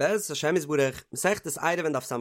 בעזרת השם יתברך, מסכת עירובין דף ס"ד,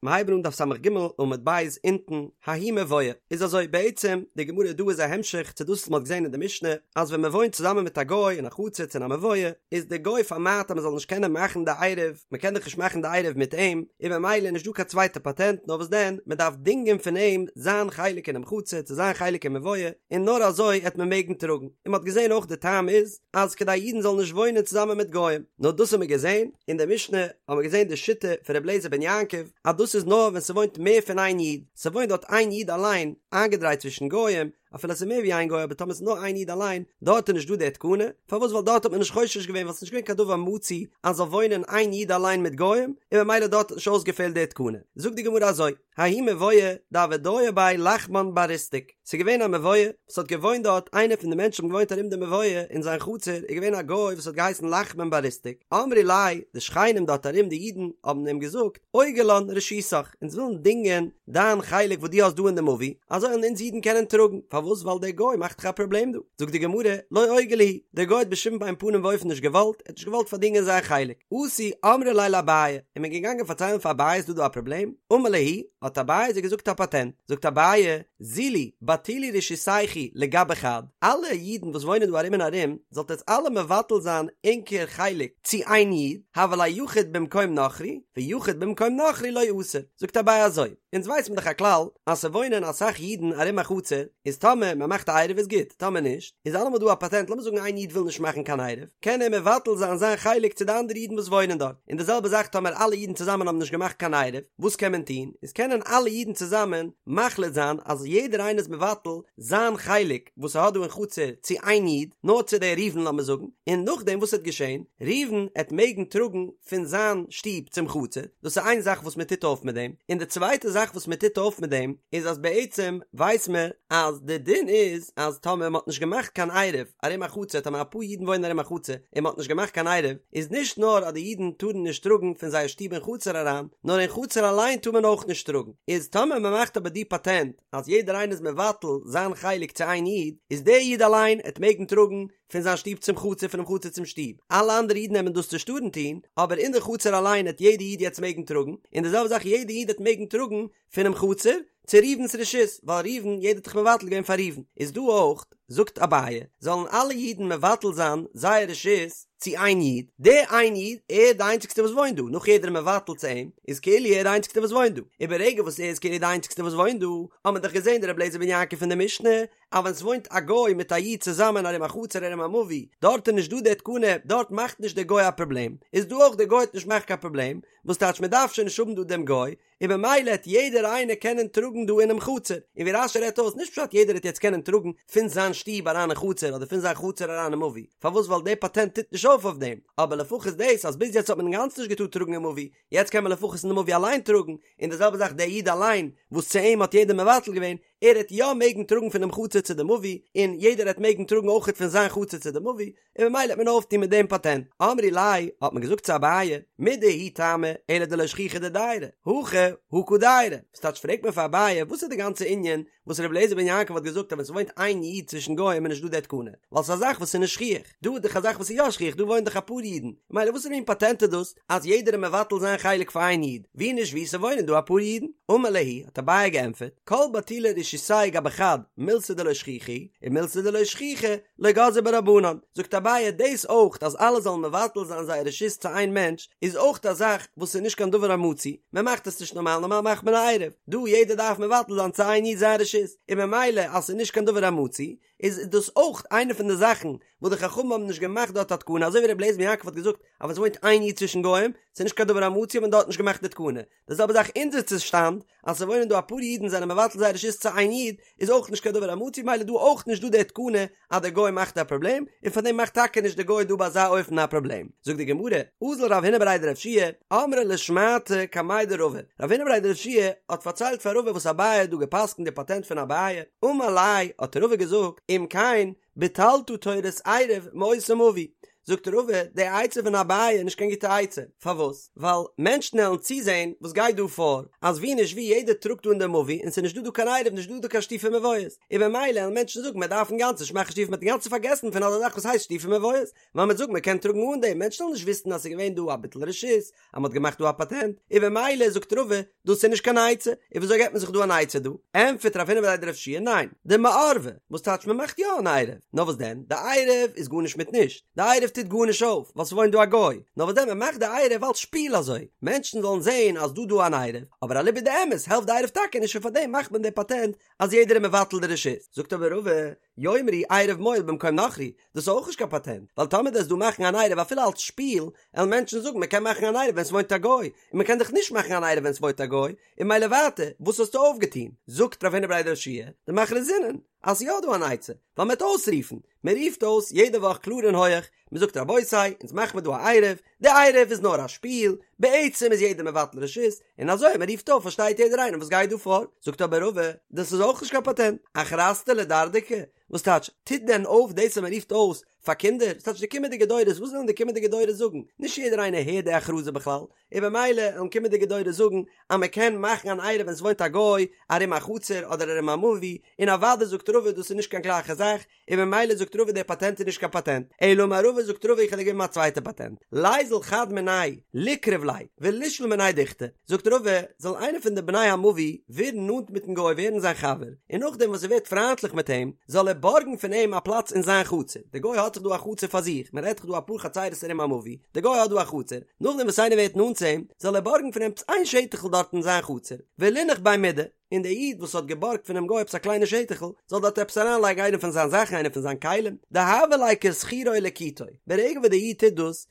מיר הייבן אן דף ס"ג עמוד ב' אונטן, ההוא מבואה, איז אזוי, בעצם, די גמרא דא איז א המשך צו דאס וואס מען האט געזען אין די משנה, אז ווען מען וואוינט צוזאמען מיט א גוי אין א חצר צו אין א מבואה, איז די גוי פארמיידט אז מען זאל נישט קענען מאכן די עירוב, מען קען דאך נישט מאכן די עירוב מיט אים, און במילא איז נישט דא קיין צווייטע פאטענט, נאר וואס דען, מען דארף דינגען פון אים זיין חלק אינעם חצר צו זיין חלק אין מבואה, און נאר אזוי העט מען מעגן טראגן, און מען האט געזען אויך די טעם איז, אז כדי אידן זאלן נישט וואוינען צוזאמען מיט גוים. נאר דאס האבן מיר געזען, אין די משנה האבן מיר געזען די שיטה פון רבי אליעזר בן יעקב, אז דאס איז נאר ווען ס'וואוינט מער פון איין איד, ס'וואוינט דארט איין איד אליין, איינגעדרייט צווישן גוים, אפילו ס'איז מער ווי איין גוי אבער טאמער ס'איז נאר איין איד אליין, דארט איז נישט דא די תקנה, פארוואס ווייל דארט האט מען נישט חושש געווען ווייל ס'איז נישט געווען קיין דבר מצוי אז זאל וואוינען איין איד אליין מיט גוים, און ממילא דארט האט נישט אויסגעפעלט די תקנה. זאגט די גמרא אזוי. ההוא מבואה דהוה דייר ביה לחמן בר ריסתק, ס'איז געווען א מבואה וואס האט געוואוינט דארט, איינער פון די מענטשן האבן געוואוינט ארום די מבואה אין זיין חצר איז געווען א גוי וואס האט געהייסן לחמן בר ריסתק, אמרי ליה, די שכנים דארט ארום די אידן האבן אים געזאגט, אוגר לן רשותך, אונז ווילן דינגען דיין חלק וואס דו האסט דא אין די מבוי, אזוי וועלן אונז אידן קענען טראגן, פארוואס ווייל דער גוי מאכט דאך א פראבלעם דא, זאגט די גמרא, לא אוגר להו, דער גוי האט בשום אין פנים ואופן נישט געוואלט, ער האט נישט געוואלט פארדינגען זיין חלק, אתו אמרו ליה לאביי, איז מען געגאנגען פארציילן פאר אביי איז דא דא א פראבלעם, אמר להו, האט אביי זיי געזאגט א פאטענט, זאגט אביי, זילו, בטילו רשותייכו לגבי חד, אלע אידן וואס וואוינען דא ארום און ארום, זאלט עטס אלע מבטל זיין ענקער חלק צו איין איד, הוה ליה יחיד במקום נכרי, ויחיד במקום נכרי לא אסר, זאגט אביי אזוי, אונז ווייס מען דאך א כלל, אז ס'וואוינען אסאך אידן ארום א חצר, איז טאמער מען מאכט א עירוב איז גוט, טאמער נישט, איז אלעמאל דא א פאטענט, לאמיר זאגן איין איד וויל נישט מאכן קיין עירוב, קען ער מבטל זיין זיין חלק צו די אנדערע אידן וואס וואוינען דארט, און די זעלבע זאך טאמער אלע אידן צוזאמען האבן נישט געמאכט קיין עירוב, וואס קען מען טון, איז קענען אלע אידן צוזאמען מחליט זיין אז יעדער איינער איז מבטל זיין חלק וואס ער האט דא אין חצר צו איין איד, נאר צו דער ראובן לאמיר זאגן, און נאכדעם וואס עט געשען, ראובן עט מעגן טראגן פון זיין שטוב צום חצר, דאס איז איין זאך וואס מען טוט אויף מיט דעם, און די צווייטע זאך וואס מען טוט אויף מיט דעם איז אז בעצם ווייס מען אז די דין איז אז טאמער מען האט נישט געמאכט קיין עירוב ארום א חצר, טאמער אפאר אידן וואוינען ארום א חצר און מען האט נישט געמאכט קיין עירוב, איז נישט נאר אז די אידן טארן נישט טראגן פון זייער שטוב אין חצר אריין, נאר אין חצר אליין טאר מען אויך נישט טראגן, איז טאמער מען מאכט אבער די פאטענט אז יעדער איינער איז מבטל זיין חלק צו איין איד, איז דער איד אליין עט מעגן טראגן פון זיין שטוב צום חצר פונעם חצר צום שטוב, אלע אנדערע אידן עמען דאס נישט טארן טון, אבער אין די חצר אליין עט יעדע איד יעצט מעגן טראגן, און די זעלבע זאך יעדע איד עט מעגן טראגן פונעם חצר צו ראובן'ס רשות, ווייל ראובן, יעדער האט דאך מבטל געווען פאר ראובן, איז דא אויך, זאגט אביי, זאלן אלע אידן מבטל זיין זייער רשות צו איין איד, דער איין איד, ער איז די איינציגסטע וואס וואוינט דא, נאך יעדער איז מבטל צו אים, איז כאילו ער איז די איינציגסטע וואס וואוינט דא, און ברגע וואס ער איז כאילו די איינציגסטע וואס וואוינט דא, האט מען דאך געזען די רבי אליעזר בן יעקב פון די משנה, אז ווען ס'וואוינט א גוי מיט א איד צוזאמען ארום א חצר ארום א מבוי, דארט איז נישט דא די תקנה, דארט מאכט נישט דער גוי א פראבלעם, איז דא אויך דער גוי עט נישט מאכן קיין פראבלעם, וואס טייטש מען דארף שוין נישט האבן דא דעם גוי, און במילא העט יעדער איינער קענען טראגן דא אינעם חצר, און ווי רש"י רעדט אויס, נישט פשט יעדער העט יעצט קענען טראגן פון זיין שטוב אריין אין חצר אדער פון זיין חצר אריין אין מבוי, פארוואס ווייל די פאטענט טוט נישט אויף אויף דעם, אבער לפחות דאס אז ביז יעצט האט מען אינגאנצן נישט געטארט טראגן אין מבוי, יעצט קען מען לפחות אין די מבוי אליין טראגן, און די זעלבע זאך דער איד אליין וואס צו אים האט יעדער מבטל געווען, ער העט יא מעגן טראגן פונעם חצר צו די מבוי, און יעדער העט מעגן טראגן אויכעט פון זיין חצר צו די מבוי, און ממילא העט מען אויפטון מיט דעם פאטענט. אמרי ליה, האט מען געזאגט צו אביי, מידי הוא טעמא, אלא דלא שכיחא דדיירי, הכא הא קא דיירי. וואס טייטש פרעגט מען פאר אביי, וואס איז די גאנצע ענין וואס רבי אליעזר בן יעקב האט געזאגט אז ווען ס'וואוינט איין איד צווישן גוים איז נישט דא די תקנה, ווייל ס'איז א זאך וואס איז נישט שכיח. דא איז דאך א זאך וואס איז יא שכיח, דא וואוינען דאך אפאר אידן, ממילא וואסערע מין פאטענט איז דאס אז יעדער איז מבטל זיין חלק פאר איין איד, ווי נישט ווי ס'וואוינען דא אפאר אידן? אמר להו, האט אביי געענטפערט, כל בטולי רשותיה גבי חד, מילתא דלא שכיחא היא, ומילתא דלא שכיחא, לא גזרו בה רבנן. זאגט אביי, דאס אויך אז אלע זאלן מבטל זיין זייער רשות צו איין מענטש, איז אויך א זאך וואס איז נישט קיין דבר המצוי, מען מאכט עס נישט נארמאל, נארמאל מאכט מען א עירוב, דא יעדער דארף מבטל זיין צו איין איד זיין רשות, און ממילא אז ס'איז נישט קיין דבר המצוי, איז דאס אויך איינע פון די זאכן וואס די חכמים האבן נישט געמאכט דארט א תקנה, אזוי ווי רבי אליעזר בן יעקב האט געזאגט אז ווען עס וואוינט איין איד צווישן גוים, ס'איז נישט קיין דבר המצוי האט מען דארט נישט געמאכט די תקנה. די זעלבע זאך אונזער צושטאנד, אז ס'וואוינען דא אפאר אידן זענען מבטל זייער רשות צו איין איד, איז אויך נישט קיין דבר המצוי ממילא דא אויך נישט דא די תקנה אז דער גוי מאכט א פראבלעם, און פארדעם מאכט טאקע נישט דער גוי דא ביי אזא אופן א פראבלעם. זאגט די גמרא, אזל רב הונא בריה דרב יהושע אמרה לשמעתא קמיה דרבא, רב הונא בריה דרב יהושע האט פארציילט פאר רבא וואס אביי האט דא געפסקנט די פאטענט פון אביי, אמר ליה האט רבא געזאגט, אם כן, ביטלת תורת עירוב מאותו מבוי. זאגט רבא, די עצה פון אביי איז נישט קיין גוטע עצה, פארוואס? ווייל מענטשן עלן צוזען וואס גייט דא פאר, אז ווי נישט ווי יעדער טראגט דא אין די מבוי און ס'איז נישט דא דא קיין עירוב נישט דא דא קיין שיתופי מבואות, און במילא עלן מענטשן זאגן מען דארף אינגאנצן נישט מאכן שיתופי מ'האט אינגאנצן פארגעסן פון אזא זאך וואס הייסט שיתופי מבואות, ווייל מ'וועט זאגן מ'קען טראגן אן דעם, מענטשן וועלן נישט וויסן אז ס'איז געווען דא א ביטול רשות, אז מ'האט געמאכט דא א פאטענט, און במילא זאגט רבא, דאס איז נישט קיין עצה, און וויאזוי געבט מען זיך דא אן עצה דא? ענטפערט רב הונא בריה דרב יהושע ניין, דמערבי, וואס טייטש מ'מאכט יא אן עירוב, נאר וואס דען, די עירוב איז גארנישט מיט נישט, די עירוב טוט גארנישט אויף, ווייל ס'וואוינט דא א גוי, נאר וואס דען מ'מאכט די עירוב אלס שפיל אזוי, מענטשן זאלן זען אז דא דא אן עירוב, אבער אליבא דאמת העלפט די עירוב טאקע נישט און פארדעם מאכט מען די פאטענט אז יעדער איז מבטל די רשות, זאגט אבער רבא, יאמרו עירוב מועיל במקום נכרי, דאס איז אויך נישט קיין פאטענט, ווייל טאמער דו וועסט דא מאכן אן עירוב אפילו אלס שפיל, עלן מענטשן זאגן מען קען מאכן אן עירוב ווען ס'וואוינט א גוי, און מען קען דאך נישט מאכן אן עירוב ווען ס'וואוינט א גוי, און ממילא ווייטער, וואס האסטו אויפגעטון? זאגט רב הונא בריה דרב יהושע, דמכרזינן, אז ס'איז יא דא אן עצה, ווייל מ'וועט אויסרופן, מען רופט אויס יעדע וואך קלאר און הויעך, מען זאגט רבותי, אונז מאכן מיר דא א עירוב, די עירוב איז נאר א שפיל, בעצם איז יעדער מבטל רשות, און אזוי אז מען רופט אויף פארשטייט יעדער איינער וואס גייט דא פאר, זאגט אבער רבא, דאס איז אויך נישט קיין פאטענט, אכרזתא לדרדקי, וואס טייטש, טוט דען אויף דאס אז מען רופט אויס פאר קינדער, וואס טייטש די קומענדיגע דורות, וואס וועלן די קומענדיגע דורות זאגן, נישט יעדער איינער הערט די הכרזה בכלל, און במילא וועלן קומענדיגע דורות זאגן אז מען קען מאכן אן עירוב ווען ס'וואוינט א גוי ארום א חצר אדער ארום א מבוי, און אוודאי זאגט רבא דאס איז נישט קיין גלייכע זאך, און במילא זאגט רבא דער פאטענט איז נישט קיין פאטענט, אלא אמר רבא זאגט רבא איך וועל דיר געבן א צווייטע פאטענט, ליזיל חד מינייהו ליקרב ליה ולישאול מיניה דוכתא, זאגט רבא זאל איינער פון די בני המבוי ווערן נאנט מיטן גוי ווערן זיין חבר, און נאכדעם וואס ער ווערט פריינטליך מיט אים זאל ער בארגן פון אים א פלאץ אין זיין חצר, דער גוי האט זיך דא א חצר פאר זיך, מען רעדט דאך דא אפאר חצרות ארום א מבוי, דער גוי האט דא א חצר, נאכדעם וואס איינער ווערט נאנט צו אים זאל ער בארגן פון אים עפעס איין שטח'ל דארט אין זיין חצר, ולינח ביה מידי. און דער איד וואס האט געבארגט פונעם גוי עפעס א קליינע שטח'ל, זאל דארט עפעס אריינלייגן איינע פון זיין זאכן, איינע פון זיין כלים, דהוה ליה כשכירו ולקיטו, ברגע וואס דער איד טוט דאס,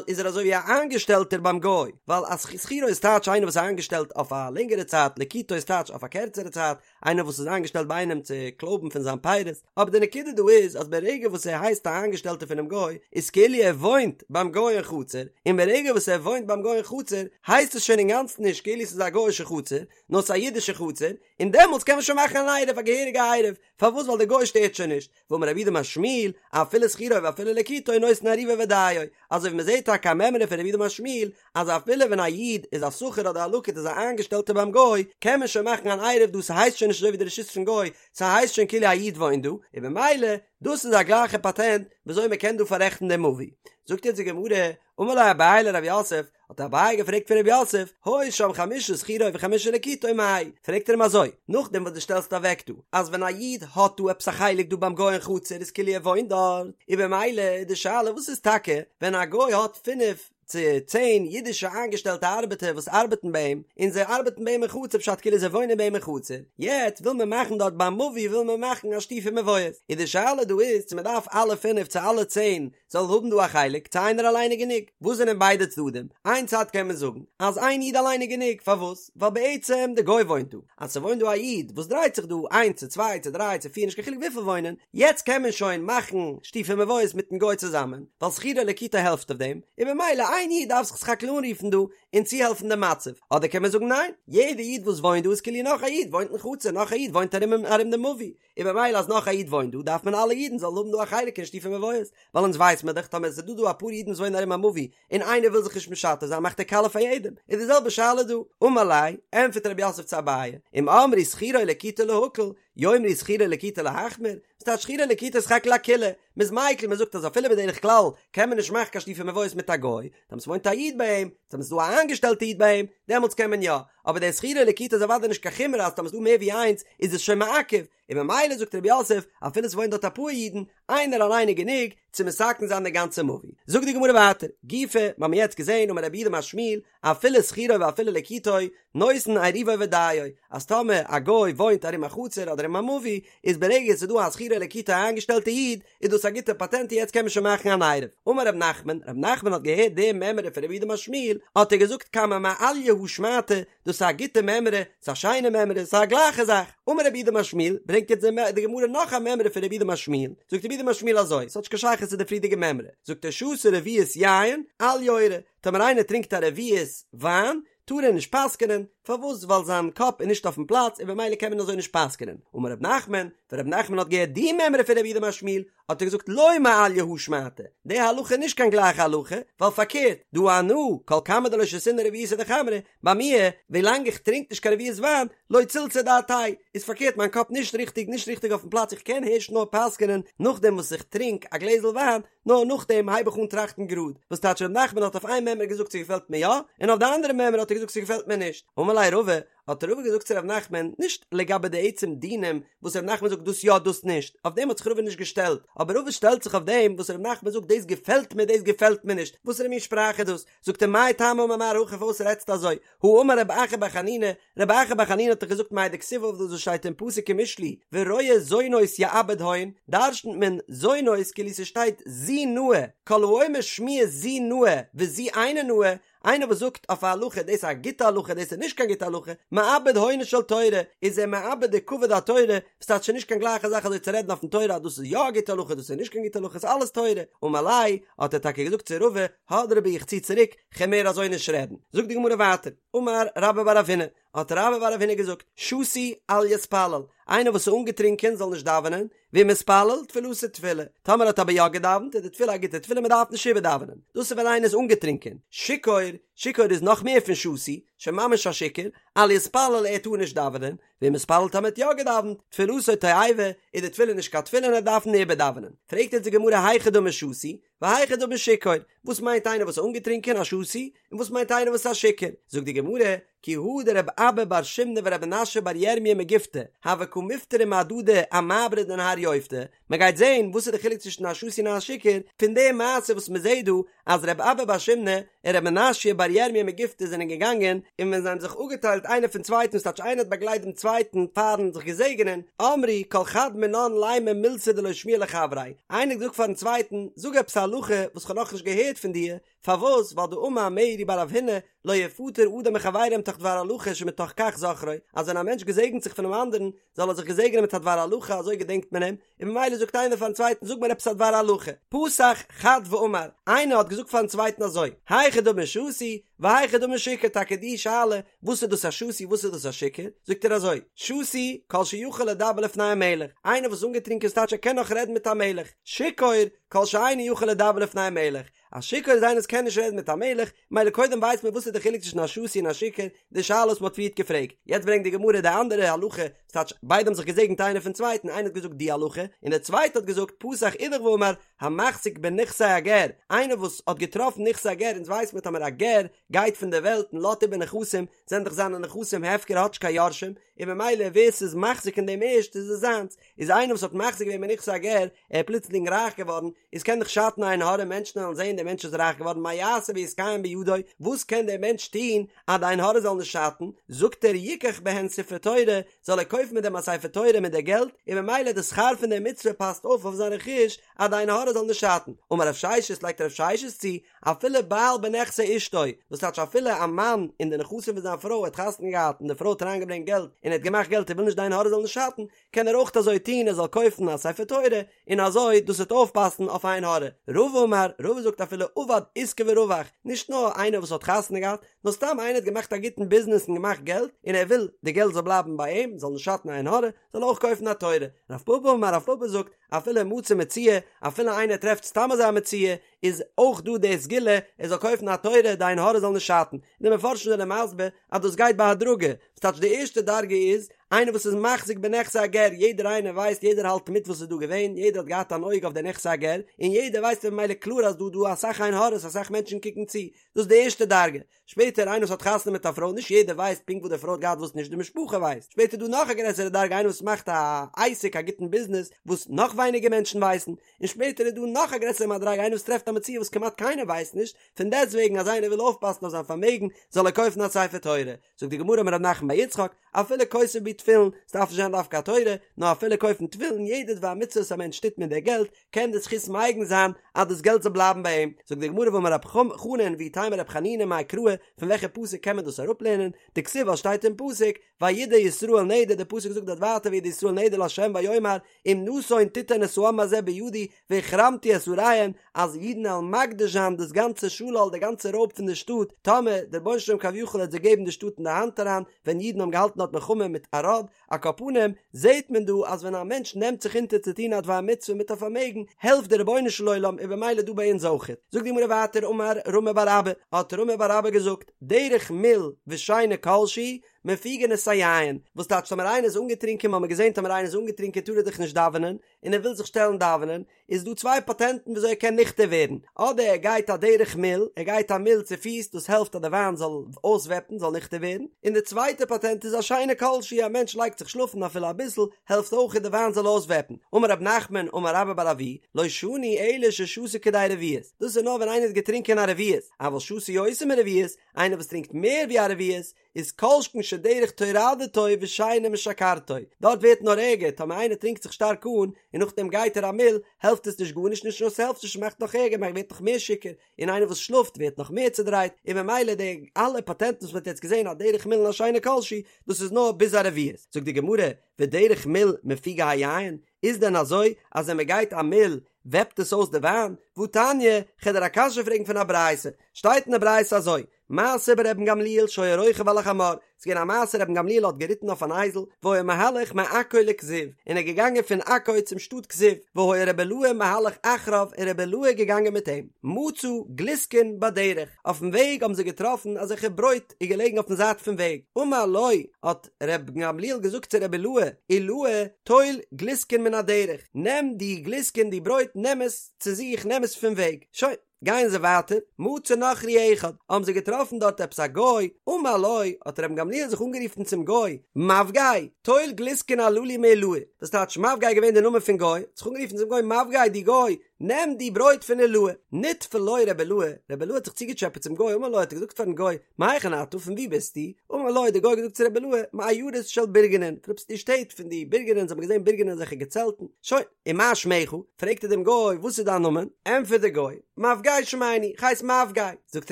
איז ער אזוי ווי א איינגעשטעלטער ביים גוי, ווייל א שכירו איז טייטש איינער וואס איז איינגעשטעלט אויף א לענגערע צייט, לקיטו איז טייטש אויף א קערצערע צייט, איינער וואס איז איינגעשטעלט ביי איינעם צו קלויבן פון זיין פירות, אבער די נקודה דא איז אז ברגע וואס ער הייסט א איינגעשטעלטער פונעם גוי, איז כאילו ער וואוינט ביים גוי אין חצר, און ברגע וואס ער וואוינט ביים גוי אין חצר, הייסט עס שוין אינגאנצן נישט כאילו ס'איז א גוי'אישע חצר, נאר ס'איז א אידישע חצר, און דעמאלטס קען מען שוין מאכן אן עירוב, א געהעריגע עירוב, פארוואס ווייל דער גוי שטערט שוין נישט, ואמר רב יהודה אמר שמואל, אפילו שכירו ואפילו לקיטו נותן עירובו ודיו, אזוי ווי מ'זעט טאקע א מימרא פון רב יהודה אמר שמואל, אז אפילו ווען א איד איז א שכיר אדער א לקיט איז א איינגעשטעלטער ביים גוי, קען מען שוין מאכן אן עירוב דא ס'הייסט שוין נישט אזוי ווי די רשות פון גוי, ס'הייסט שוין כאילו א איד וואוינט דא, און במילא דאס איז א גלייכע פאטענט וויאזוי מ'קען דא פאררעכטן דעם מבוי. זאגט יעצט די גמרא, אמר ליה אביי לרב יוסף, האט אביי געפרעגט פון רב יוסף, היו שם חמשה שכירו וחמשה לקיטו מאי? פרעגט ער אים אזוי, נאכדעם וואס דו שטעלסט אוועק דא, אז ווען א איד האט דא עפעס א חלק דא ביים גוי אין חצר איז כאילו ער וואוינט דארט, און במילא איז די שאלה וואס איז טאקע ווען א גוי האט פינף צו צען אידישע איינגעשטעלטע ארבעטער וואס ארבעטן ביי אים, און זיי ארבעטן ביי אים אין חצר פשט כאילו זיי וואוינען ביי אים אין חצר, יעצט וויל מען מאכן דארט ביים מבוי וויל מען מאכן א שיתופי מבואות, איז די שאלה דא איז צו מען דארף אלע פינף צו אלע צען זאל האבן דא א חלק, צו איינער אליין איז גענוג? וואס זענען ביידע צדדים? איין צד קען מען זאגן אז איין איד אליין איז גענוג, פארוואס? ווייל בעצם די גוי וואוינט דא, אז ס'וואוינט דא א איד וואס דרייט זיך דא איינס צו צוויי צו דריי צו פיר נישט קיין חילוק וויפיל וואוינען, יעצט קען מען שוין מאכן שיתופי מבואות מיטן גוי צוזאמען, ווייל שכירו ולקיטו העלפט אויף דעם, און במילא איין איד דארף זיך סך הכל אנרופן דא און צוהעלפן דעם מצב, אדער קען מען זאגן ניין, יעדע איד וואס וואוינט דא איז כאילו נאך א איד וואוינט אין חצר, נאך א איד וואוינט ארום ארום דעם מבוי, און במילא אז נאך א איד וואוינט דא דארף מען אלע אידן זאלן האבן דא א חלק אין שיתופי מבואות, ווייל אונז ווייס מען דאך טאמער עס איז דא דא אפאר אידן וואס וואוינען ארום א מבוי און איינער וויל זיך נישט משתף זיין מאכט ער קאלע פאר יעדעם, איז די זעלבע שאלה דא, אמר ליה, ענטפערט רב יוסף צו אביי, אם אמרו שכירו ולקיטו להקל, יאמרו שכירו ולקיטו להחמיר, וואס טייטש שכירו ולקיטו איז סך הכל א קולא, מען איז מיקל מען זאגט אז אפילו בדרך כלל קען מען נישט מאכן קיין שיתופי מבואות מיט א גוי, טאמער ס'וואוינט א איד ביי אים, טאמער ס'איז דא א איינגעשטעלטע איד ביי אים, דעמאלטס קען מען יא, אבער דער שכירו ולקיטו איז אוודאי נישט קיין חומרא אז טאמער ס'איז דא מער ווי איינס איז עס שוין מעכב, און ממילא זאגט רב יוסף אפילו ס'וואוינט דארט אפאר אידן, איינער אליין איז גענוג צו מתקן זיין די גאנצע מבוי. זאגט די גמרא ווייטער, גופא, מ'האמיר יעצט געזען אמר רב יהודה אמר שמואל, אפילו שכירו ואפילו לקיטו, נותן עירובו ודיו, אז טאמער א גוי וואוינט ארום א חצר אדער ארום א מבוי, איז ברגע ס'איז דא א שכירו ולקיטו א איינגעשטעלטע איד, איז דאס א גוטע פאטענט און יעצט קען מען שוין מאכן אן עירוב. אמר רב נחמן, רב נחמן האט געהערט די מימרא פון רב יהודה אמר שמואל, האט ער געזאגט כמה מעליא הא שמעתא, דאס איז א גוטע מימרא, ס'איז א שיינע מימרא, ס'איז א גלייכע זאך. אמר רב יהודה אמר שמואל, ברענגט יעצט די גמרא נאך א מימרא פון רב יהודה אמר שמואל, זאגט רב יהודה אמר שמואל אזוי, ס'האט נישט קיין שייכות צו די פריערדיגע מימרא, זאגט ער שתה רביעית יין, אל יורה, טאמער איינער טרינקט א רביעית וויין, טאר ער נישט פסק'נען, פארוואס ווייל זיין קאפ איז נישט אויפן פלאץ און במילא קען מען אזוי נישט פסק'נען, אמר ר' נחמן, ווען ר' נחמן האט געהערט די מימרא פון רב יהודה אמר שמואל, האט ער געזאגט לא מעליא הא שמעתא, די הלכה איז נישט קיין גלייכע הלכה, ווייל פארקערט, דהא אנא, כל כמה דלא שתינא רביעתא דחמרא, ביי מיר, ווילאנג איך טרינק נישט קיין רביעית וויין, לא צלצלה דעתאי, איז פארקערט מיין קאפ נישט ריכטיג נישט ריכטיג אויפן פלאץ איך קען הערשט נאר פסק'נען נאכדעם וואס איך טרינק א גלעזל וויין, נאר נאכדעם הייב איך אן טראכטן גראד, וואס טייטש ר' נחמן האט אויף איין מימרא געזאגט ס'געפעלט מיר יא, און אויף די אנדערע מימרא האט ער געזאגט ס'געפעלט מיר נישט, אמר ליה רבא, האט רבא געזאגט צו ר' נחמן, נישט לגבי די עצם דינים וואס ר' נחמן זאגט דאס יא דאס נישט, אויף דעם האט זיך רבא נישט געשטעלט, אבער רבא שטעלט זיך אויף דעם וואס ר' נחמן זאגט דאס געפעלט מיר דאס געפעלט מיר נישט, וואסערע מין שפראך איז דאס? זאגט ער מאי טעמא אמר מר הכי פארוואס רעדסטו אזוי? הא אמר רב אחא בר חנינא, רב אחא בר חנינא האט דאך געזאגט מאי דכתיב אויף דאס וואס שטייט אין פסוק אין משלי, ורועה זונות יאבד הון, דרשנ'ט מען זונות כאילו ס'שטייט זו נאה, כל האומר שמועה זו נאה וזו אינה נאה, איינער וואס זאגט אויף א הלכה דאס איז א גוטע הלכה דאס איז נישט קיין גוטע הלכה, מאבד הונה של תורה, איז ער מאבד די כבוד התורה, וואס טייטש ס'איז נישט קיין גלייכע זאך אזוי צו רעדן אויפן תורה אז דאס איז יא א גוטע הלכה דאס איז נישט קיין גוטע הלכה ס'איז אלעס תורה, אמר ליה, האט ער טאקע געזאגט צו רבא, הדרי בי איך צי צוריק, כ'על מער אזוי נישט רעדן. זאגט די גמרא ווייטער, אמר רבה בר רב הונא, האט רבה בר רב הונא געזאגט, שתוי אל יתפלל, איינער וואס איז אנגעטרינקען זאל נישט דאווענען, ואם התפלל, תפילתו תפילה, טאמער האט אבער יא געדאווענט איז די תפילה א גוטע תפילה מען דארף נישט איבערדאווענען, דאס איז ווען איינער איז אנגעטרינקען, שיכור, שיכור איז נאך מער פון שתוי, שוין ממש א שיכור, אל יתפלל ער טאר נישט דאווענען, ואם התפלל טאמער האט יא געדאווענט, תפילתו תועבה, איז די תפילה נישט קיין תפילה און ער דארף איבערדאווענען. פרעגט יעצט די גמרא היכי דמי שתוי, והיכי דמי שיכור, וואס מיינט איינער וואס איז אנגעטרינקען, א שתוי, און וואס מיינט איינער וואס איז א שיכור? זאגט די גמרא, כי הא דרב אבא בר שימנא ורב מנשיא בר ירמיה מגיפתי, הוו קא מפטרי מהדדי אמעברא דנהר יופתא, מען גייט זעהן וואס איז די חילוק צווישן א שתוי און א שיכור, פון די מעשה וואס מען זעהט דא אז רב אבא בר שימנא און רב מנשיא בר ירמיה מגיפתי זענען געגאנגען, און ווען זיי האבן זיך אפגעטיילט איינער פון צווייטן, ס'טייטש איינער האט באגלייט דעם צווייטן פארן זיך געזעגענען, אמרי כל חד מינן לימא מילתא דלא שמיע לחבריה, איינער האט געזאגט פארן צווייטן, זאג עפעס א הלכה וואס כ'האב נאכנישט געהערט פון דיר, פארוואס? ווייל דאמר מרי בר רב הונא, לא יפטר אדם מחבירו מתוך דבר הלכה שמתוך כך זוכרו, אז ווען א מענטש געזעגנט זיך פונעם אנדערן, זאל ער זיך געזעגענען מיט א דבר הלכה אזוי געדענקט מען אים, און ממילא זאגט איינער פארן צווייטן זאג מיר עפעס א דבר הלכה, פתח חד ואמר, איינער האט געזאגט פארן צווייטן אזוי, היכי דמי שתוי, והיכי דמי שיכור, טאקע די שאלה, וואס איז דאס א שתוי וואס איז דאס א שיכור, זאגט ער אזוי, שתוי, כל שיכול לדבר לפני המלך, איינער וואס איז אנגעטרינקען ס'טייטש ער קען נאך רעדן מיט א מלך, שיכור, כל שאינו יכול לדבר לפני המלך, א שיכור איז איינער וואס קען נישט רעדן מיט א מלך, מילא קודם ווייסט מען וואס איז די חילוק צווישן א שתוי און א שיכור, די שאלה וואס מ'האט פריערט געפרעגט. יעצט ברענגט די גמרא די אנדערע הלכה, ס'טייטש ביידע האבן זיך געזעגנט איינער פון צווייטן, איינער האט געזאגט די הלכה, און דער צווייטער האט געזאגט פתח אידך ואמר, המחזיק בנכסי הגר, איינער וואס האט געטראפן נכסי הגר, אונז ווייסט מען טאמער א גר גייט פון דער וועלט און לאזט איבער נכסים, זענען דאך זיינע נכסים הפקר ער האט נישט קיין יורשים, און ממילא ווער ס'איז מחזיק אין דעם ערשט איז עס זיינס, איז איינער וואס האט מחזיק געווען בנכסי הגר, ער איז פלוצלינג רייך געווארן, איז קען דאך שאטן עין הרע, מענטשן וועלן זען דער מענטש איז רייך געווארן, מה יעשה ויתקיים בידו, וואס קען דער מענטש טון אז די עין הרע זאל נישט שאטן, זאגט ער יקח בהן ספר תורה, זאל ער קויפן מיט דעם א ספר תורה מיט די געלט, און ממילא די שכר פון די מצוה פאסט אויף אויף זיין רכוש אז די עין הרע זאל נישט שאטן. אמר רב ששת לייגט רב ששת צו, אפילו בעל בנכסי אשתו, וואס טייטש אפילו א מאן אין די נכסים פון זיין פרוי האט חתונה געהאט און די פרוי האט אריינגעברענגט געלט און ער האט געמאכט געלט ער וויל נישט די עין הרע זאל נישט שאטן, קען ער אויך אזוי טון ער זאל קויפן א ספר תורה און אזוי דאס וועט אויפפאסן אויף עין הרע. רבא אמר, רבא זאגט אפילו עבד עיסקא ורווח, נישט נאר איינער וואס האט חתונה געהאט, נאר סתם איינער האט געמאכט א גוטן ביזנעס און געמאכט געלט און ער וויל די געלט זאל בלייבן ביי אים, זאל נישט שאטן עין הרע, זאל ער אויך קויפן א תורה. רב פפא אמר, רב פפא זאגט, אפילו מצא מציאה, אפילו איינער טרעפט סתם אזוי א מציאה, איז אויך דא די סגולה ער זאל קויפן א תורה די עין הרע זאל נישט שאטן, און די מפרשים זענען מסביר אז דאס גייט בהדרגה, וואס טייטש די ערשטע דרגה איז איינער וואס איז מחזיק בנכסי הגר, יעדער איינער ווייסט יעדער האלט מיט וואס איז דא געווען, יעדער האט געהאט אן אויג אויף די נכסי הגר, און יעדער ווייסט ממילא קלאר אז דא דא אסאך עין הרע'ס אסאך מענטשן קוקן צו, דאס איז די ערשטע דרגה, שפעטער איינער וואס האט חתונה מיט א פרוי נישט יעדער ווייסט פונקט וואס די פרוי האט געהאט וואס נישט די משפחה ווייסט, שפעטער איז דא נאך א גרעסערע דרגה איינער וואס מאכט א עסק א גוטן ביזנעס וואס נאך ווייניגער מענטשן ווייסן, און שפעטער איז דא נאך א גרעסערע מדריגה איינער וואס טרעפט א מציאה וואס כמעט קיינער ווייסט נישט, פון דעסט וועגן אז איינער וויל אויפפאסן אויף זיין פארמעגן זאל ער קויפן א ספר תורה, זאגט די גמרא אמר רב נחמן בר יצחק, אפילו כותב בי. תפילין, ס'דארף נישט זיין דווקא א תורה, נאר אפילו קויפן תפילין, יעדע דבר מצוה וואס א מענטש טוט מיט די געלט, קען די זכות מגין זיין אז דאס געלט זאל בלייבן ביי אים. זאגט די גמרא ואמר רב חנן ואיתימא רב חנינא מאי קרא, פון וועלכע פסוק קען מען דאס אראפלערנען, דכתיב ווייל שטייט אין פסוק, וידר ישראל נדר, די פסוק זאגט דארט ווייטער וידר ישראל נדר לה' ויאמר אם נתון תתן את העם הזה בידי והחרמתי את עריהם, אז אידן וועלן מקדיש זיין דאס גאנצע שלל די גאנצע רויב פון די שטאט, טאמער דער רבונו של עולם כביכול העט זיי געבן די שטאט אין די האנט אריין, ווען אידן האבן געהאלטן דארט מלחמה מיט ערד, על כל פנים, זעהט מען דא אז ווען א מענטש נעמט זיך אונטער צו טון א דבר מצוה מיט א פארמעגן, העלפט דער רבונו של עולם און במילא דא ביי אונז אויכעט. זאגט די גמרא ווייטער אמר רמי בר אבא, האט רמי בר אבא געזאגט, דרך מיל ושינה כל שהיא, מפיגין את היין, וואס טייטש טאמער איינער איז אנגעטרינקען, מ'האמיר געזען טאמער איינער איז אנגעטרינקען טאר ער דאך נישט דאווענען, און ער וויל זיך שטעלן דאווענען, איז דא צוויי פאטענטן וויאזוי ער קען ניכטער ווערן, אדער ער גייט א דרך מיל, ער גייט א מיל צו פיס, דאס העלפט אז די וויין זאל אויסוועפן, זאל ניכטער ווערן, און די צווייטע פאטענט איז א שינה כל שהיא, א מענטש לייגט זיך שלאפן אפילו אביסל, העלפט אויך די וויין זאל אויסוועפן, אמר רב נחמן אמר רבה בר אבוה, לא שנו אלא ששתה כדי רביעית, דאס איז נאר ווען איינער האט געטרינקען א רביעית, אבל שתה יותר מרביעית, איינער וואס טרינקט מער ווי א רביעית, איז כל שכן שדרך טורדתו ושינה משכרתו, דארט ווערט נאר ערגער, טאמער איינער טרינקט זיך שטארק אן, און נאכדעם גייט ער א מיל, העלפט עס נישט גארנישט, נישט נאר ס'העלפט נישט ס'מאכט נאך ערגער, מען ווערט נאך מער שיכור, און איינער וואס שלאפט ווערט נאך מער צודרייט, און ממילא די אלע פאטענטן וואס מען האט יעצט געזען א דרך מיל און א שינה כל שהיא, דאס איז נאר ביז א רביעית. זאגט די גמרא, ודרך מיל מפיגה היין, איז דען אזוי אז ווען מען גייט א מיל וועפט עס אויס די וויין? והתניא, כ'על דיר א קשיא פרעגן פון א ברייתא, שטייט אין די ברייתא אזוי, מעשה ברבן גמליאל שהיה רוכב על החמור, ס'איז געווען א מעשה רבן גמליאל האט געריטן אויף אן אייזל, והיה מהלך מעכו לכזיב, און ער איז געגאנגען פון עכו צום שטאט כזיב, והיה רבי אילעאי מהלך אחריו און רבי אילעאי איז געגאנגען מיט אים, מצא גלוסקין בדרך, אויפן וועג האבן זיי געטראפן אזעלכע ברויט איז געלעגן אויפן זייט פון וועג, אמר לו, האט רבן גמליאל געזאגט צו רבי אילעאי, אילעאי, טול גלוסקין מן הדרך, נעם די גלוסקין די ברויט נעם עס צו זיך נעם עס פון וועג, שוין. גייען זיי ווייטער, מצא נכרי אחד, האבן זיי געטראפן דארט עפעס א גוי, אמר לו, האט רבן גמליאל זיך אנגערופן צום גוי, מבגאי, טול גלוסקין הללו מעילאי, דאס טייטש מבגאי איז געווען די נאמען פון גוי, האט זיך אנגערופן צום גוי מבגאי דו גוי, נעם די ברויט פון עילאי, נטפל לו רבי אילעאי, רבי אילעאי האט זיך צוגעטשעפעט צום גוי, אמר לו האט ער געזאגט פארן גוי, מהיכן אתה, פון וואו ביסטו? אמר לו האט דער גוי געזאגט צו רבי אילעאי, מעיירות של בורגנין, פון עפעס די שטעט פון די בורגנין, זיי האבן געזען בורגנין אזעלכע געצעלטן, שוין. ומה שמך? פרעגט ער דעם גוי, וואס איז דיין נאמען? ענטפערט דער גוי, מבגאי שמני, איך הייס מבגאי. זאגט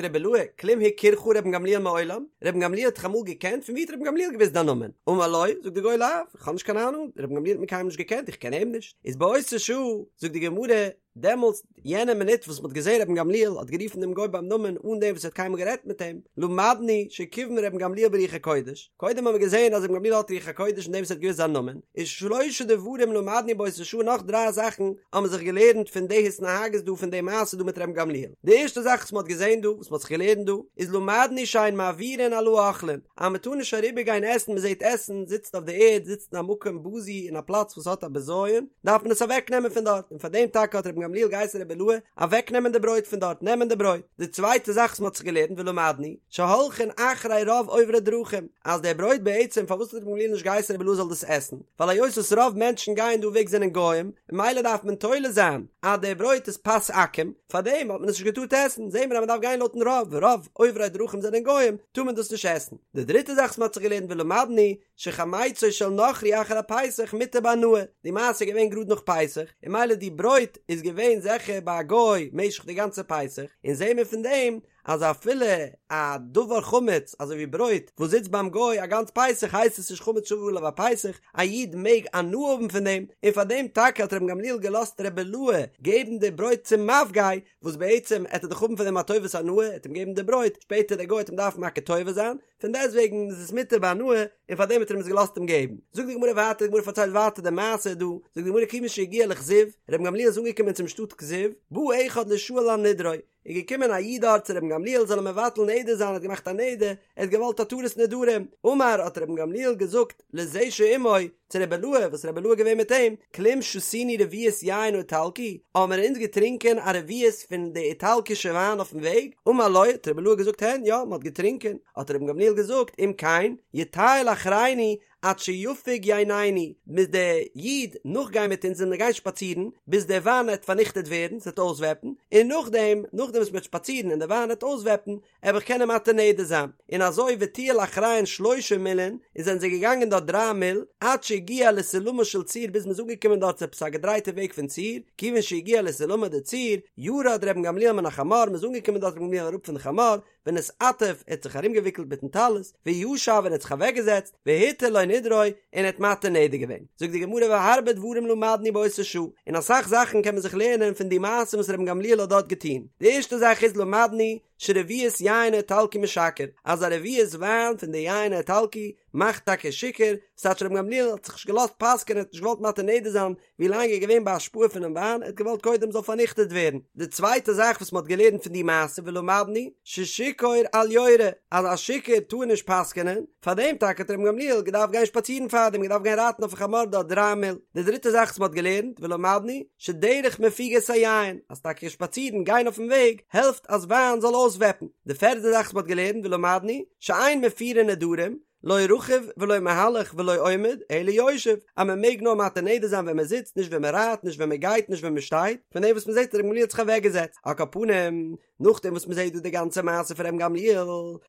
רבי אילעאי, כלום הכירך רבן גמליאל מעולם? רבן גמליאל האט דיך אמאל געקענט? פון ווי האט רבן גמליאל געוואוסט דיין נאמען? אמר לו, זאגט דער גוי, לאו, איך האב נישט קיין אהנונג, רבן גמליאל האט מיר קיינמאל נישט געקענט, איך קען אים נישט. איז באותה שעה, זאגט די גמרא, דעמאלטס, יענע מינוט וואס מ'האט געזען רבן גמליאל האט גערופן דעם גוי ביים נאמען אן דעם וואס ער האט קיינמאל גערעדט מיט אים, למדנו שכיוון רבן גמליאל ברוח הקודש, קודם האבן מיר געזען אז רבן גמליאל האט רוח הקודש אין דעם וואס ער האט געוואוסט זיין נאמען, איז שלשה דברים למדנו באותה שעה נאך דריי זאכן האבן מיר זיך געלערנט פון די התנהגות דא פון די מעשה דא מיט רבן גמליאל, די ערשטע זאך וואס מ'האט געזען דא, וואס מ'האט זיך געלערנט דא, איז למדנו שאין מעבירין על האוכלין, אז מ'טאר נישט אריבער גיין עסן, מ'זעט עסן זיצט אויף די ערד, זיצט אין א מקום בזוי אין א פלאץ וואס האט א בזיון, דארף מען עס אוועק נעמען פון דארט, און פאר דעם טאקע האט רבן גמליאל געהייסן רבי אילעאי אוועק נעמען די ברויט פון דארט, נעמען די ברויט. די צווייטע זאך וואס מען האט זיך געלערנט ולמדנו, שהולכין אחרי רוב עוברי דרכים, אז דער ברויט בעצם פארוואס האט רבן גמליאל נישט געהייסן רבי אילעאי זאל דאס עסן, ווייל היות וואס רוב מענטשן גייען דא וועג זענען גוים, ממילא דארף מען תולה זיין אז דער ברויט איז פת עכו"ם, פאר דעם האט מען עס נישט געטארט עסן, זעהן מיר אז מען דארף גיין לויטן רוב, רוב עוברי דרכים זענען גוים, טאר מען דאס נישט עסן. די דריטע זאך וואס מען האט זיך געלערנט ולמדנו, שחמיצו של נכרי אחר הפסח מותר בהנאה, די מעשה איז געווען גראד נאך פסח, און ממילא די ברויט איז געווען זיכער ביי א גוי משך די גאנצע פסח, און זעהן מיר פון דעם אז אפילו א דבר חמץ אזוי ווי ברויט וואס זיצט ביים גוי א גאנץ פסח הייסט עס נישט חמץ שעבר עליו הפסח, א איד מעג הנאה האבן פון דעם, און פאר דעם טאקע האט רבן גמליאל געלאזט רבי אילעאי געבן די ברויט צום מבגאי, וואס בעצם עט ער דאך האבן פון דעם א טובת הנאה, ער עט אים געבן די ברויט, שפעטער דער גוי עט אים דארפן מכיר טובה זיין, פון דעסטוועגן איז עס מותר בהנאה, און פאר דעם האט ער אים עס געלאזט אים געבן. זאגט די גמרא ווייטער, די גמרא פארציילט ווייטער די מעשה דא, זאגט די גמרא כיוון שהגיע לכזיב, רבן גמליאל איז אנגעקומען צום שטאט כזיב, בא אחד לישאל על נדרו, איז געקומען א איד דארט צו רבן גמליאל זאל אים מבטל נדר זיין, ער האט געמאכט א נדר, ער האט געוואלט התרת נדרים, אמר האט רבן גמליאל געזאגט לזה שעמו, צו רבי אילעאי, וואס רבי אילעאי איז געווען מיט אים, כלום שתינו רביעית יין האיטלקי, האבן מיר אונז געטרינקען א רביעית פון די איטאלקישע וויין אויפן וועג? אמר לו, האט רבי אילעאי געזאגט הן, יא, מען האט געטרינקען, האט רבן גמליאל געזאגט, אם כן, יטייל אחרינו, עד שיפוג ייננו, מוז דער איד נאכגיין מיט אונז און מיר גיין שפאצירן ביז דער וויין עט פארניכטעט ווערן, ס'עט אויסוועפן, און נאכדעם, נאכדעם וואס מ'וועט שפאצירן און דער וויין עט אויסוועפן, עב איך קענען מתיר נדר זיין, און אזוי וטייל אחריהן שלושה מילין, און זענען זיי געגאנגען דארט דריי מיל, עד שהגיע לסולמה של צור ביז מ'איז אנגעקומען דארט צו עפעס א געדרייטע וועג פון צור, כיוון שהגיע לסולמא דצור, ירד רבן גמליאל מן החמור, מ'איז אנגעקומען דארט רבן גמליאל אראפ פון די חמור, ונתעטף, ער האט זיך ארומגעוויקלט מיטן טלית, וישב און ער האט זיך אוועקגעזעצט, והתיר לו נדרו, און ער האט מתיר נדר געווען. זאגט די גמרא והרבה דברים למדנו באותה שעה, און אסאך זאכן קען מען זיך לערנען פון די מעשה וואס רבן גמליאל האט דארט געטון. די ערשטע זאך איז למדנו, שרביעית יין האיטלקי משכר, אז א רביעית וויין פון די יין האיטלקי מאכט טאקע שיכור, ס'טייטש רבן גמליאל האט זיך נישט געלאזט פסק'ענען, ער האט נישט געוואלט מתיר נדר זיין ווי לאנג ער איז געווען בהשפעה פונעם וויין, ער האט געוואלט קודם זאל פארניכטעט ווערן. די צווייטע זאך וואס מ'האט געלערנט פון די מעשה ולמדנו ששיכור אל יורה, אז א שיכור טאר נישט פסק'ענען, פארדעם טאקע האט רבן גמליאל געדארפט גיין שפאצירן פארדעם, געדארפט גיין רייטן אויפן חמור דארט דריי מיל. די דריטע זאך וואס מ'האט געלערנט ולמדנו שדרך מפיגה את היין, אז טאקע שפאצירן גיין אויפן וועג העלפט אז וויין זאל אויסוועפן. די פערטע זאך וואס מ'האט געלערנט ולמדנו שאין מפירין נדרים, לא רכוב ולא מהלך ולא עומד, אלא יושב, אז מען מעג נאר מתיר נדר זיין ווען מען זיצט, נישט ווען מען רייט, נישט ווען מען גייט, נישט ווען מען שטייט, פון דעם וואס מען זעט אז ר' גמליאל האט זיך אוועק געזעצט, על כל פנים, נאכדעם וואס מען זעט דא די גאנצע מעשה פון ר' גמליאל,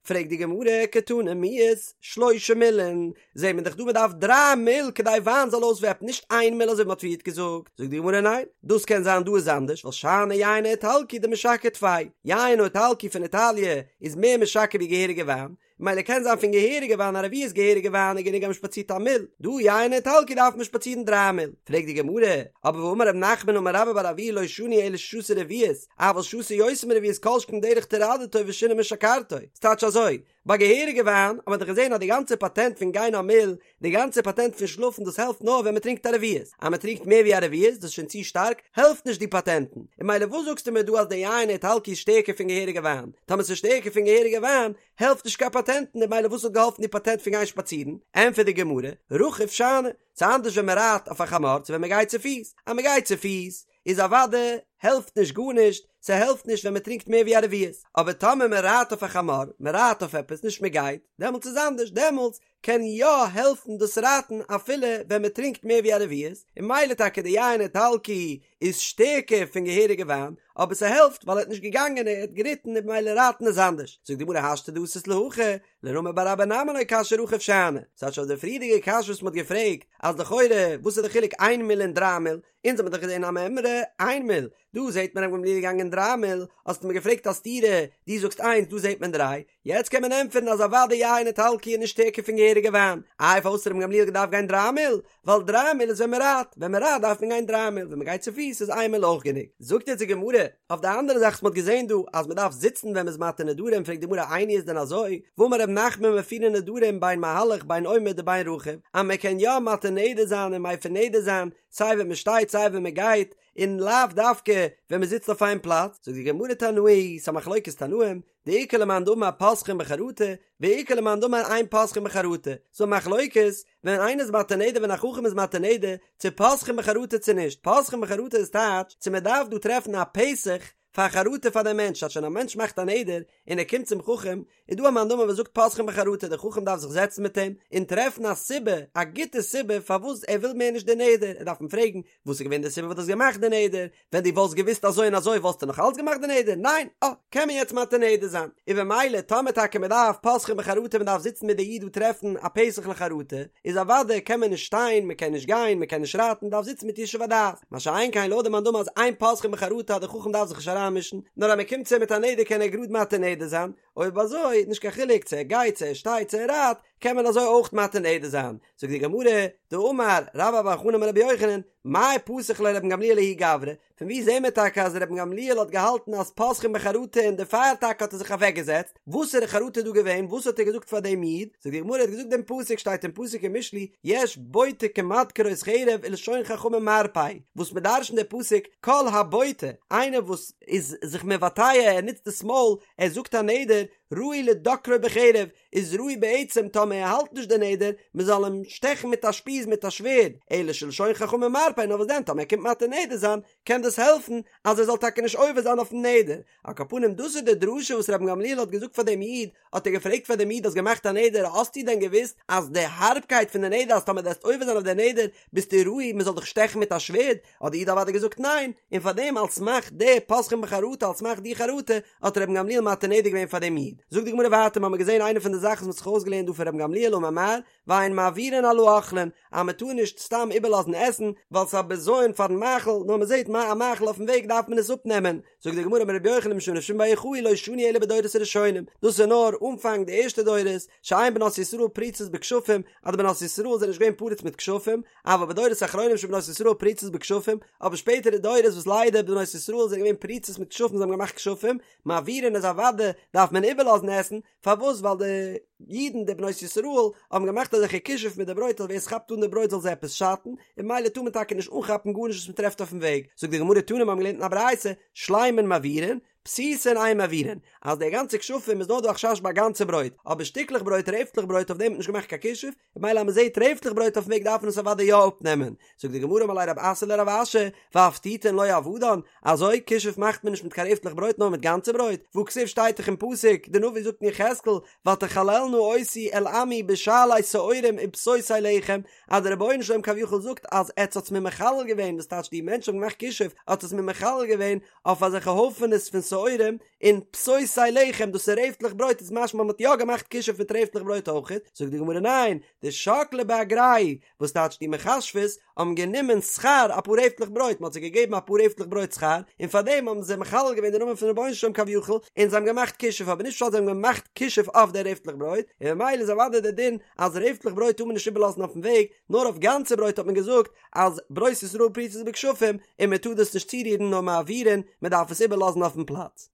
פרעגט די גמרא, קתני מיהת, שלושה מילין, זעט מען דאך דא מען דארף דריי מיל כדי וויין זאל אויסוועפן, נישט איין מיל אזוי ווי מען האט פריערט געזאגט, זאגט די גמרא ניין, דאס קען זיין דא איז אנדערש, ווייל שאני יין האיטלקי דמשכר טפי, יין האיטלקי פון איטאליע איז מער משכר ווי געהעריגע וויין, מילא קען זיין פון געהעריגע וויין א רביעית געהעריגע וויין איז גענוג אז מ'שפאצירט א מיל, דא יין האיטלקי דארף מען שפאצירן דריי מיל. פרעגט די גמרא, אבער והאמר רב נחמן אמר רבה בר אבוה לא שנו אלא ששתה רביעית, אבל שתה יותר מרביעית כל שכן דרך טרדתו ושינה משכרתו. ס'טייטש אזוי, ביי געהעריגע וויין האט מען דאך געזען אז די גאנצע פאטענט פון גיין א מיל, די גאנצע פאטענט פון שלאפן דאס העלפט נאר ווען מ'טרינקט א רביעית, אז מ'טרינקט מער ווי א רביעית דאס איז שוין צו שטארק, העלפט נישט די פאטענטן. און מילא וואס זאגסטו מיר דא אז די יין האיטלקי איז שטערקער פון געהעריגע וויין? טאמער ס'איז שטערקער פון געהעריגע וויין, העלפט נישט קיין פאטענטן און מילא וואס האט געהאלפן די פאטענט פון גיין שפאצירן? ענטפערט די גמרא, רכוב שאני, ס'איז אנדערש ווען מ'רייט אויף א חמור צו ווען מ'גייט צופיס, אז מ'גייט צופיס איז אוודאי העלפט נישט גארנישט, ס'העלפט נישט ווען מ'טרינקט מער ווי א רביעית, אבער טאמער מ'רייט אויף א חמור, מ'רייט אויף עפעס נישט מ'גייט, דעמאלטס איז אנדערש, דעמאלטס קען יא העלפן דאס רייטן אפילו ווען מען טרינקט מער ווי א רביעית, און מילא טאקע די יין איטלקי איז שטערקער פון געהעריגע וויין, אבער ס'העלפט ווייל ער האט נישט געגאנגען ער האט געריטן און במילא רייטן איז אנדערש. זאגט די גמרא השתא דאתית להכי, לרמי בר אבא נמי לא קשיא רכוב שאני, ס'טייטש אויף די פריערדיגע קשיא וואס מ'האט געפרעגט אז לכאורה וואס איז די חילוק איין מיל און דריי מיל, אונז האמיר דאך געזען א מימרא איין מיל, דא זעט מען רבן גמליאל איז געגאנגען דריי מיל, האסטו מיר געפרעגט א סתירה, דו זאגסט איינס דא זעט מען דריי, יעצט קען מען ענטפערן אז אוודאי יין איטלקי איז נישט שטערקער פון געהעריגע וויין, איי פארוואס האט רבן גמליאל געדארפט גיין דריי מיל? ווייל דריי מיל איז ווען מען רייט, ווען מען רייט דארף מען גיין דריי מיל, ווען מען גייט צופיס איז איין מיל אויך גענוג. זאגט יעצט די גמרא, אויף די אנדערע זאך וואס מען האט געזען דא אז מען דארף זיצן ווען מען איז מתיר נדרים, פרעגט די גמרא איני איז דען אזוי, והאמר ר' נחמן מפירין נדרים בין מהלך בין עומד ובין רכוב, אז מען קען יא מתיר נדר זיין און מפר נדר זיין סיי ווען מען שטייט סיי ווען מען גייט, און לאו דווקא ווען מען זיצט אויף איין פלאץ, זאגט די גמרא תנאי, ס'א מחלוקת תנאים, דאיכא למאן דאמר פותחין בחרטה, ואיכא למאן דאמר אין פותחין בחרטה, ס'א מחלוקת, ווען איינער איז מתיר נדר ווען א חכם איז מתיר נדר, צו פותחין בחרטה צו נישט, פותחין בחרטה איז טייטש, צו מען דארף דא טרעפן א פתח פאר חרטה פאר דעם מענטש, טייטש ווען א מענטש מאכט א נדר, און ער קומט צום חכם, איז דא א מאן דאמר וואס זאגט פותחין בחרטה, דער חכם דארף זיך זעצן מיט אים, און טרעפן א סיבה, א גוטע סיבה פארוואס ער וויל מער נישט די נדר, ער דארף אים פרעגן, וואס איז געווען די סיבה וואס דו האסט געמאכט די נדר, ווען דו וואלסט געוואוסט אזוי און אזוי וואלסטו נאך אלץ געמאכט די נדר? ניין! אה, קען מען יעצט מתיר נדר זיין. און במילא טאמער טאקע מען דארף פותחין בחרטה מען דארף זיצן מיט די איד און טרעפן א פתח לחרטה, איז אוודאי קען מען נישט שטיין, מען קען נישט גיין, מען קען נישט רייטן, מען דארף זיצן מיט ישוב הדעת. מה שאין כן לויט די מאן דאמר אז אין פותחין בחרטה אז די חכם דארף זיך נישט אריינמישן, נאר אז מען קומט צו אים מיט א נדר קען ער גראד מתיר נדר זיין, אויב אזוי נישט קיין חילוק צו ער גייט צו ער שטייט צו ער רייט, קען מען אזוי אויך מתיר נדר זיין. זאגט די גמרא, דאמר רבה בר בר חנה אמר רבי יוחנן, מאי פתח ליה רבן גמליאל לההוא גברא, פון וואו זעהן מיר טאקע אז רבן גמליאל האט געהאלטן אז פותחין בחרטה און דערפאר טאקע האט ער זיך אוועקגעזעצט, וואסערע חרטה איז דא געווען, וואס האט ער געזאגט פאר דעם איד, זאגט די גמרא ער האט געזאגט דעם פסוק שטייט אין פסוק אין משלי, יש בוטה כמדקרות חרב ולשון חכמים מרפא, וואס מען דרש'נט די פסוק כל הבוטה, איינער וואס איז זיך מבטא ער נוצט דאס מויל, ער זאגט א נדר, ראוי לדוקרו בחרב, איז ראוי בעצם טאמער ער האלט נישט די נדר, מען זאל אים שטעכן מיט א שפיז מיט א שווערד, אלא שלשון חכמים מרפא, נאר וואס דען טאמער ער קומט מתיר נדר זיין, קען דאס העלפן אז ער זאל טאקע נישט עובר זיין אויפן נדר. על כל פנים דאס איז די דרשה וואס רבן גמליאל האט געזאגט פאר דעם איד, האט ער געפרעגט פאר דעם איד האסט געמאכט א נדר האסטו דען געוואוסט אז די הארבקייט פון די נדר אז טאמער דו וועסט עובר זיין אויף די נדר ביסטו ראוי מען זאל דיך שטעכן מיט א שווערד, האט די איד אוודאי געזאגט ניין, און פאר דעם על סמך די פותחין בחרטה על סמך די חרטה האט רבן גמליאל מתיר נדר געווען פאר דעם איד. זאגט די גמרא ווייטער מ'האמיר געזען איינע פון די זאכן וואס מ'האט זיך אויסגעלערנט דא פון רבן גמליאל אמר מר ואין מעבירין על האוכלין אז מ'טאר נישט סתם איבערלאזן עסן ווייל ס'איז א בזיון פארן מאכל נאר מ'זעט א מאכל אויפן וועג דארף מען עס אפנעמען זאגט די גמרא אמר רבי יוחנן משום רבי שמעון בר יוחאי לא שנו אלא בדורות הראשונים דאס איז נאר אנפאנג די ערשטע דורות שאין בנות ישראל פרוצות בכשפים אז די בנות ישראל זענען נישט געווען פרוץ מיט כשפים אבל בדורות האחרונים שבנות ישראל פרוצות בכשפים אבער שפעטערע דורות וואס ליידער בנות ישראל זענען געווען פרוצות מיט כשפים זיי האבן געמאכט כשפים מעבירין איז אוודאי דארף מען איבערלאזן עסן פארוואס ווייל די אידן די בנות ישראל האבן געמאכט אזעלכע כישוף מיט די ברויט אז ווער עס כאפט אן די ברויט זאל זיי עפעס שאטן, און ממילא טאר מען טאקע נישט אנכאפן גארנישט וואס מען טרעפט אויפן וועג, זאגט די גמרא תנא מיר האבן געלערנט אין א ברייתא, שלימין מעבירין, פתיתין אין מעבירין, אז די גאנצע כשפים איז נאר דא א חשש ביי גאנצע ברויט, אבער שטיקלעך ברויט רעפטלעך ברויט אויף דעם האט מען נישט געמאכט קיין כישוף, ממילא אז מען זעט רעפטלעך ברויט אויפן וועג דארף מען עס אוודאי יא אפנעמען, זאגט די גמרא אמר ליה רב אסי לרב אשי, ואפתיתין לא עבדן, אזוי כישוף מאכט מען נישט מיט קיין רעפטלעך ברויט נאר מיט גאנצע ברויט, והכתיב שטייט דאך אין פסוק, די נביא זאגט אין יחזקאל, ותחללנה אותי אל עמי בשעלי שעורים ובפתותי לחם, אז דער רבונו של עולם כביכול זאגט אז עטס האטס מיר מחלל געווען, וואס טייטש די מענטשן האבן געמאכט כישוף, האט עס מיר מחלל געווען אויף אזעלכע הויפענעס פון שעורים, און פתותי לחם, דאס איז רעפטלעך ברויט, איז משמע מ'האט יא געמאכט כישוף מיט רעפטלעך ברויט אויכעט, זאגט די גמרא ניין, דשקלי באגרייהו, וואס טייטש די מכשפות האבן גענומען שכר אפאר רעפטלעך ברויט, מ'האט זיי געגעבן אפאר רעפטלעך ברויט שכר, און פארדעם האבן זיי מחלל געווען די נאמען פון רבונו של עולם כביכול, און זיי האבן געמאכט כישוף, אבער נישט פשט זיי האבן געמאכט כישוף אויף די רעפטלעך ברויט, און ממילא איז אוודאי דער דין אז רעפטלעך ברויט טאר מען נישט איבערלאזן אויפן וועג, נאר אויף גאנצע ברויט האט מען געזאגט אז בנות ישראל פרוצות בכשפים און מען טאר דאס נישט צורירן נאר מעבירין, מען דארף עס איבערלאזן אויפן פלאץ.